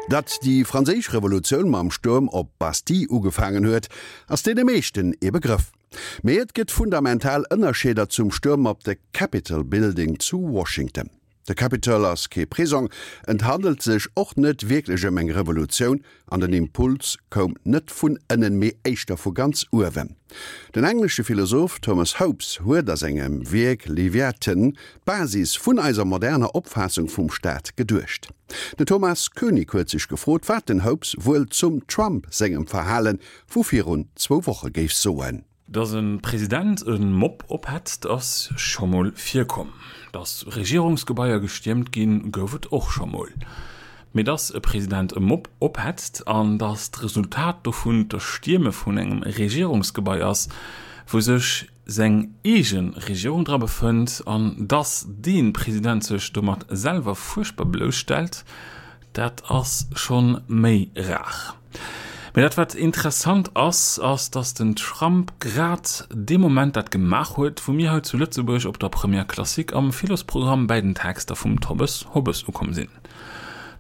Datt déi franséisch Revolutioun mam Stuerm op d'Bastille ugefaangen huet, ass deene meeschten ee Begrëff. Mee et gëtt fundamental Ënnerscheeder zum Stuerm op de Capitol Building zu Washington. De Capitol ass kee Prisong, et handelt sech och net wierklech ëm eng Revolutioun an den Impuls koum net vun ënnen, mee éischter vu ganz uewen. Den englesche Philosoph Thomas Hobbes huet a sengem Wierk Leviathan d'Basis vun eiser moderner Opfaassung vum Staat geduecht. Den Thomas Koenig huet sech gefrot, wat den Hobbes wuel zum Trump sengem Verhale vu virun zwou Woche géif soen. Dass e President e Mob ophetzt, ass scho mol virkomm. Dass Regierungsgebaier gestiermt ginn, gouf et och scho mol. Mee dass e President e Mob ophetzt an dass d'Resultat dovun d'Erstierme vun engem Regierungsgebai ass, wou sech seng eege Regierung dra befënnt, an dass dee President sech domat selwer fuerchtbar blousstellt, Dat ass schonn méi rar. Mee dat wat interessant ass, ass dass den Trump grad dee Moment dat gemaach huet, wou mir hei zu Lëtzebuerg op der Première Classique am Philosprogramm bäi den Texter vum Thomas Hobbes ukomm sinn.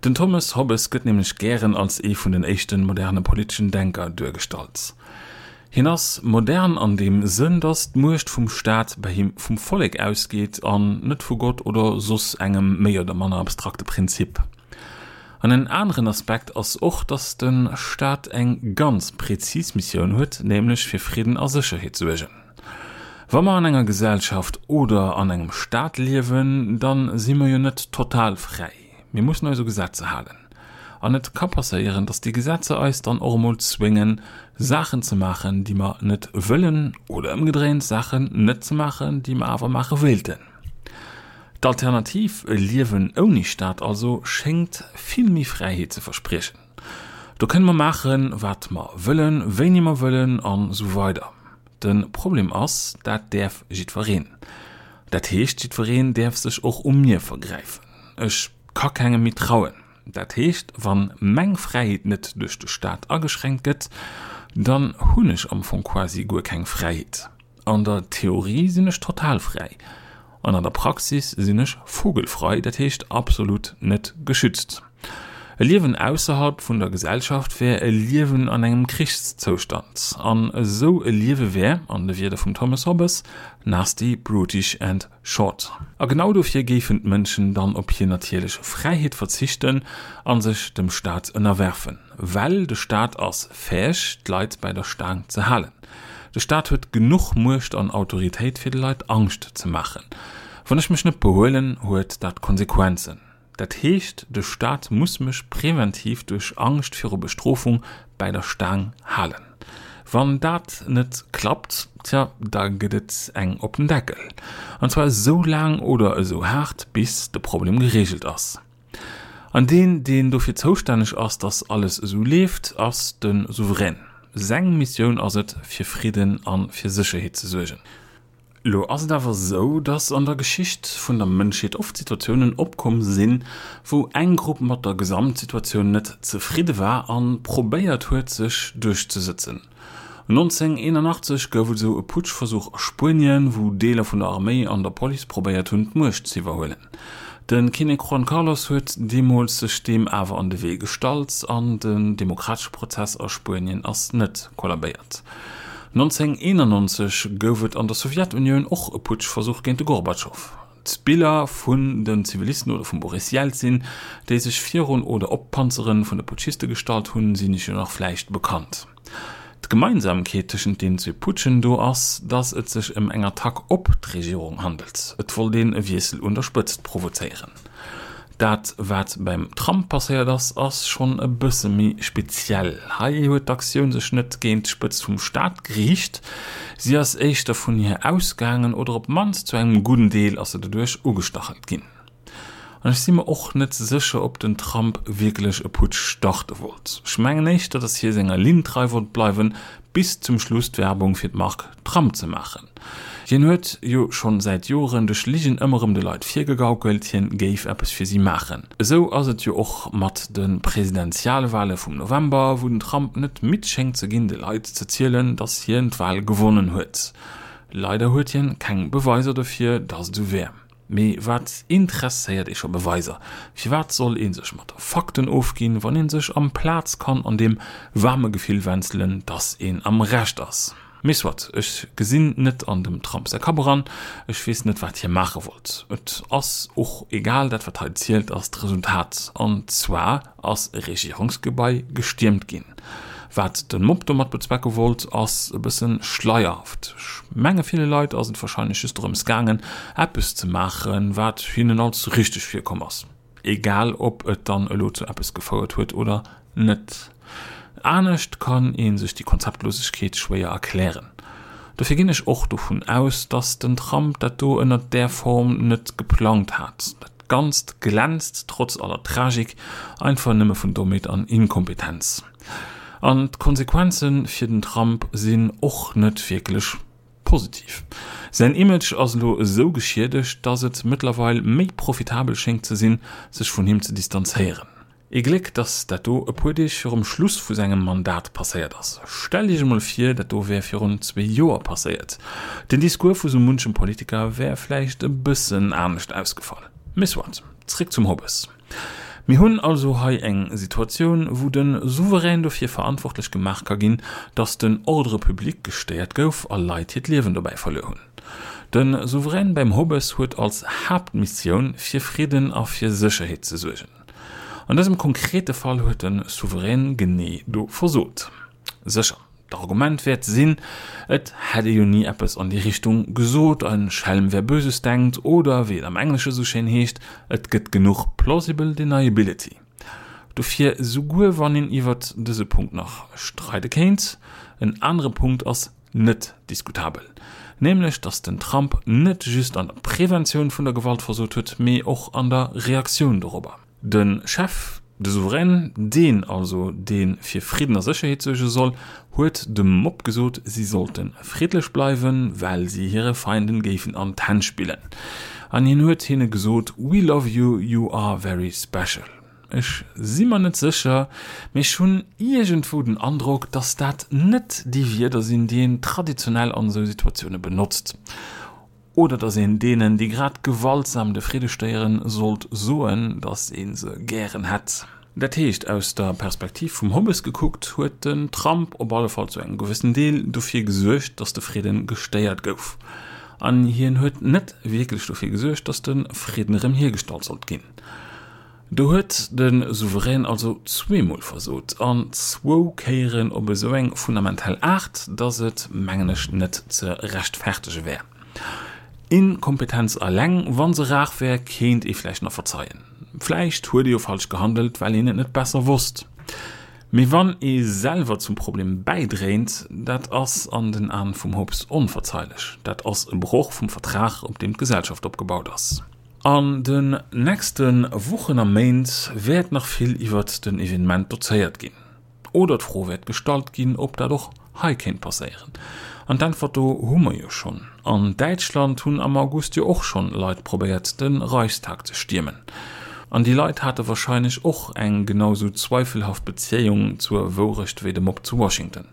Den Thomas Hobbes gëtt nämlech gären als ee vun den éischten moderne politeschen Denker duergestallt. Hien ass modern an deem Sënn, datt d'Muecht vum Staat bei him vum Vollek ausgeet an net vu Gott oder soss engem méi oder manner abstrakte Prinzip. An en aneren Aspekt ass och, datt de Staat eng ganz prezis Missioun huet, nämlech fir Fridden a Sécherheet suergen. Wa mer an enger Gesellschaft oder an engem Staat liewen, da si mer jo net total fräi. Mir mussen eis u Gesetzer halen. An et ka passéieren, dass déi Gesetzer eis dann och emol zwéngen, Saachen ze maachen, déi mer net wëllen, oder ëmgedréint, Saachen net ze maachen, déi mer awer maache wéilten. D'Alternativ, e Liewen ouni Staat also, schéngt vill méi Fräiheet ze verspriechen. Do kënne mer maachen, wat mer wëllen, wéini mer wëllen an esou weider. De Problem ass, dat däerf jiddwereen. Dat heescht, jiddwereen däerf sech och u mir vergräifen. Ech ka kengem méi trauen. Dat heescht, wann meng Fräiheet net duerch de Staat ageschränkt gëtt, dann hunn ech am Fong quasi guer keng Fräiheet. An der Theorie sinn ech total fräi, an an der Praxis sinn ech vogelfrei, dat heescht absolut net geschützt. E Liewen ausserhalb vun der Gesellschaft wär e Liewen an engem Krichszoustand. An esou e Liewe wär, an de Wierder vum Thomas Hobbes, nasty, brutish and short. A genau dofir géifen d'Mënschen dann op hir natierlech Fräiheet verzichten a sech dem Staat ënnerwerfen. Well de Staat ass fäeg, d'Leit bäi der Staang ze halen. De Staat huet genuch Muecht an Autoritéit, fir de Leit Angscht ze maachen. Wann ech mech net behuelen, huet dat Konsequenzen. Dat heescht, de Staat muss mech präventiv duerch Angscht viru Bestrofung bäi der Staang halen. Wann dat net klappt, tja, da gëtt et eng op den Deckel. An zwar esou laang oder esou haart, bis de Problem gereegelt ass. An deen, deen dofir zoustänneg ass, dass alles esou leeft, ass de Souverän. Seng Missioun ass et, fir Fridden a fir Sécherheet ze suergen. Lo ass et awer esou, dass an der Geschicht vun der Mënschheet oft Situatiounen opkomm sinn, wou eng Grupp mat der Gesamtsituatioun net zefridde war a probéiert huet, sech duerchzesëtzen. 1981 gouf et esou e Putschversuch a Spuenien, wou Deeler vun der Arméi an der Police probéiert hunn, d'Muecht z'iwwerhuelen. De Kinnek Juan Carlos huet deemools sech deem awer an de Wee gestallt an den demokratesche Prozess a Spuenien ass net kollabéiert. 1991 gouf et an der Sowjetunioun och e Putschversuch géint de Gorbatschow. D'Biller vun den Zivilisten oder vum Boris Jelzin, déi sech virun oder op d'Panzere vun de Putschiste gestallt hunn, sinn iech jo nach vläicht bekannt. D'Gemeinsamkeet tëschent den zwee Putschen do ass, datt et sech ëm eng Attack op d'Regierung handelt. Et wollt een e Wiessel un der Spëtzt provozéieren. Dat wat beim Trump passéiert ass, ass schonn e bësse méi speziell. Hei huet d'Aktioun sech net géint d'Spëtzt vum Staat geriicht, si ass éischter vun hir ausgaangen oder op d'mannst zu engem gudden Deel ass se doduerch ugestachelt ginn. An ech si mer och net sécher, ob den Trump wierklech e Putsch starte wollt. Ech mengen éischter, datt hie senger Linn trei wollt bleiwen, bis zum Schluss d'Werbung fir d'Mark Trump ze maachen. Hien huet jo schonn säit Joren duerch Ligen ëmmer erëm de Leit virgegaukelt, hien géif eppes fir si maachen. Esou ass et jo och mat de Presidentialwale vum November, wou den Trump net midd schéngt ze ginn, de Leit ze zielen, datt hien d'Wal gewonnen huet. Leider huet hien keng Beweiser dofir, datt et esou wär. Mee wat interesséiert ee scho Beweiser? Firwat soll ee sech mat Fakten ofginn, wann ee sech amplaz kann an deem waarme Gefill wänzelen, dass een am Recht ass? Mee soit, ech gesinn net an dem Trump säi Kapp eran, ech weess net wat hie maache wollt. Et ass och egal, dat wat hei zielt ass d'Resultat, an zwar ass e Regierungsgebai gestiermt ginn. Wat de Mob domat bezwecke wollt ass e bësse schleierhaft. Ech menge ville Leit ass et warscheinlech just dorëms gaangen eppes ze maachen wat hinnen als richteg virkomm ass. Egal ob et dann elo zu eppes gefouert huet oder net. Anescht kann ee sech déi Konzeptlosegkeet schwéier erklären. Dofir ginn ech och dovun aus, datt den Trump dat do ënnert där Form net geplangt hat. Dat Ganzt glänzt, trotz aller Tragik, einfach nëmme vun Dommheet an Inkompetenz. An d'Konsequenze fir den Trump sinn och net wierklech Positiv. Säin Image ass elo esou geschiedegt, dass et mëttlerweil méi profitabel schéngt ze sinn, sech vun him ze distanzéieren. Ee Gléck, dass dat do e puer Deeg virum Schluss vu sengem Mandat passéiert ass. Stellt Iech emol vir, dat do wär virun zwee Joer passéiert. Den Discours vu sou munchem Politiker wär vläicht e bëssen anescht ausgefall. Mee soit, zréck zum Hobbes. Mir hunn also hei eng Situatioun, wou de Souverän dofir verantwortlech gemaach ka ginn, datt den Ordre public gestéiert gouf a Leit hiert Liewen dobäi verluer hunn. De Souverän beim Hobbes huet als Haaptmissioun, fir Fridden a fir Sécherheet ze suergen. An dësem konkrete Fall huet de Souverän genee do versot. Sécher. D'Argument wäert sinn, et hätt ee jo ni eppes an déi Richtung gesot, ein Schelm wer Böses denkt, oder wéi et am Englesche sou schéin heescht, et gëtt genuch plausible deniability. Dofir, souguer wann een iwwert dëse Punkt nach streide kéint, en anere Punkt ass net diskutabel, nämlech datt den Trump net just an der Preventioun vun der Gewalt versot huet, mee och an der Reaktioun dorobber. De Chef, de Souverän, deen also, dee fir Fridden a Sécherheet suerge soll, huet dem Mob gesot, si sollte friddlech bleiwen, well si hire Feinden géifen an d'Hänn spillen. An hien huet hinne gesot, We love you, you are very special. Ech si mer net sécher, mee ech hunn iergendwou den Androck, datt dat net déi Wierder sinn, déi een traditionell an esou Situatioune benotzt. Oder datt een deenen, déi grad gewaltsam de Fridde stéieren, sollt soen, datt ee se gären hätt. Dat heescht, aus der Perspektiv vum Hobbes gekuckt, huet den Trump op alle Fall zu engem gewëssen Deel dofir gesuergt, datt de Fridde gestéiert gouf. An hien huet net wierklech dofir gesuergt, datt de Fridden erëm hiergestallt sollt ginn. Do huet de Souverän also zweemol versot, an zwou Kéieren op esou eng fundamental Aart, datt et, mengen ech, net ze rechtfertege wär. Inkompetenz eleng, wa se rar wär, kéint ee vläicht nach verzeien. Vläicht huet ee jo falsch gehandelt, well een et net besser wosst. Mee wann ee selwer zum Problem bäidréint, dat ass an den Aen vum Hobbes onverzeilech. Dat ass e Broch vum Vertrag, op deem d'Gesellschaft opgebaut ass. An den nächste Wochen a Méint wäert nach vill iwwert den Evenement dozéiert ginn. Oder d'Fro wäert gestallt ginn, ob dat och hei kéint passéieren. An d'Äntwert do hu mer jo schonn. An Däitschland hunn am August jo och schonn Leit probéiert, de Reichstag ze stiermen. An déi Leit hate warscheinlech och eng genau sou zweifelhaft Beziéung zur Wourecht wéi de Mob zu Washington.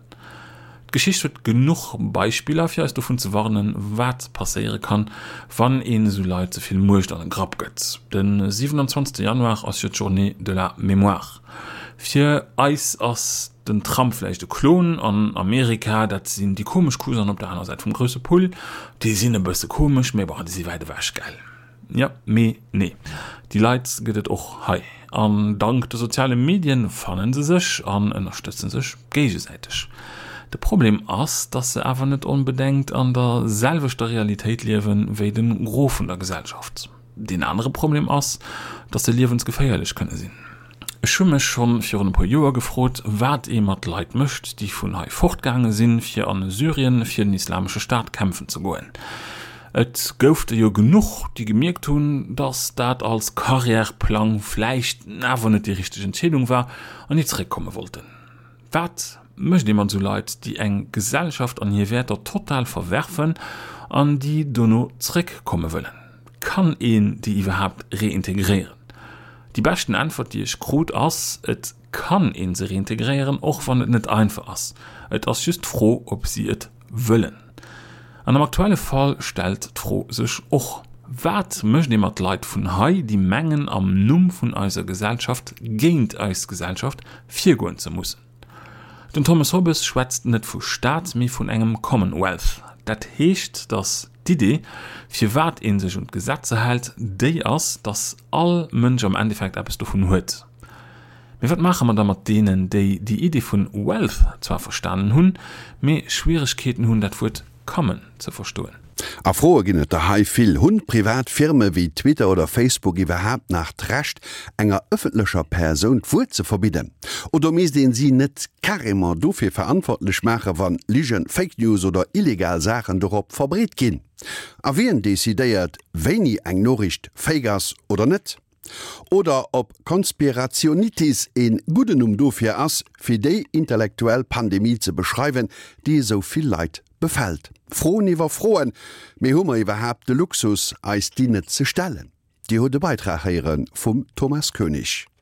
D'Geschicht huet genuch Beispiller fir eis dovun ze warnen, wat passéiere kann, wann een esou Leit ze vill Muecht an e Grapp gëtt. De 27 Januar ass jo d'Journée de la Mémoire. Fir eis ass den Trump vläicht e Klon, an Amerika, dat sinn déi komesch Cousainen op der aner Säit vum grousse Pull. Déi sinn e bësse komesch, mee bon, déi si wäit ewech, gell? Jo, mee nee. Déi Leit gëtt et och hei. An dank de soziale Medien fannen se sech an ënnerstëtzen sech géigesäiteg. De Problem ass, dass se awer net onbedengt an der selwechter Realitéit liewen wéi de Gros vun der Gesellschaft. Deen anere Problem ass, dass se liewensgeféierlech kënne sinn. Ech hu mech schonn virun e puer Joer gefrot, wat ee mat Leit mécht, déi vun hei fortgaange sinn, fir an Syrien fir den Islamesche Staat kämpfen ze goen. Et gouf der jo genuch, déi gemierkt hunn, datt dat als Karriärplang vläicht awer net déi richteg Entscheedung war an déi zeréckkomme wollten. Wat mécht ee mat esou Leit, déi eng Gesellschaft an hir Wäerter total verwerfen an déi dono zeréckkomme wëllen? Kann een déi iwwerhaapt reintegréieren? Déi beschten Äntwert, déi ech krut, ass, Et kann ee se reintegréieren, och wann et net einfach ass. Et ass just d'Fro, ob si et wëllen. An am aktuelle Fall stellt d'Fro sech och. Wat mécht ee mat Leit vun hei, déi mengen am Numm vun eiser Gesellschaft géint eis Gesellschaft virgoen ze mussen? Den Thomas Hobbes schwätzt net vu Staat, mee vun engem Commonwealth. Dat heescht, datt d'Idee, firwat ee sech un d'Gesetzer hält, déi ass, datt all Mënsch am Endeffekt eppes dovun huet. Mee wat maache mer da mat deenen, déi déi Idee vun Wealth zwar verstanen hunn, mee Schwieregkeeten hunn, dat Wuert common ze verstoen? A Froe ginn et der hei vill. Hunn privat Firme wéi Twitter oder Facebook iwwerhaapt nach d'Recht, enger ëffentlecher Persoun d'Wuert ze verbidden? Oder misst een si net carrément dofir verantwortlech maachen, wann Ligen, Fake News oder illegal Saachen dorop verbreet ginn? A wien decidéiert, wéini eng Noriicht fake ass oder net? Oder ob Conspirationitis een gudden Numm dofir ass, fir déi intellektuell Pandemie ze beschreiwen, déi esou vill Leit befält. Froen iwwer Froen, mee hu mer iwwerhaapt de Luxus, eis déi net ze stellen? Dir hutt e Beitrag héiere vum Thomas Koenig.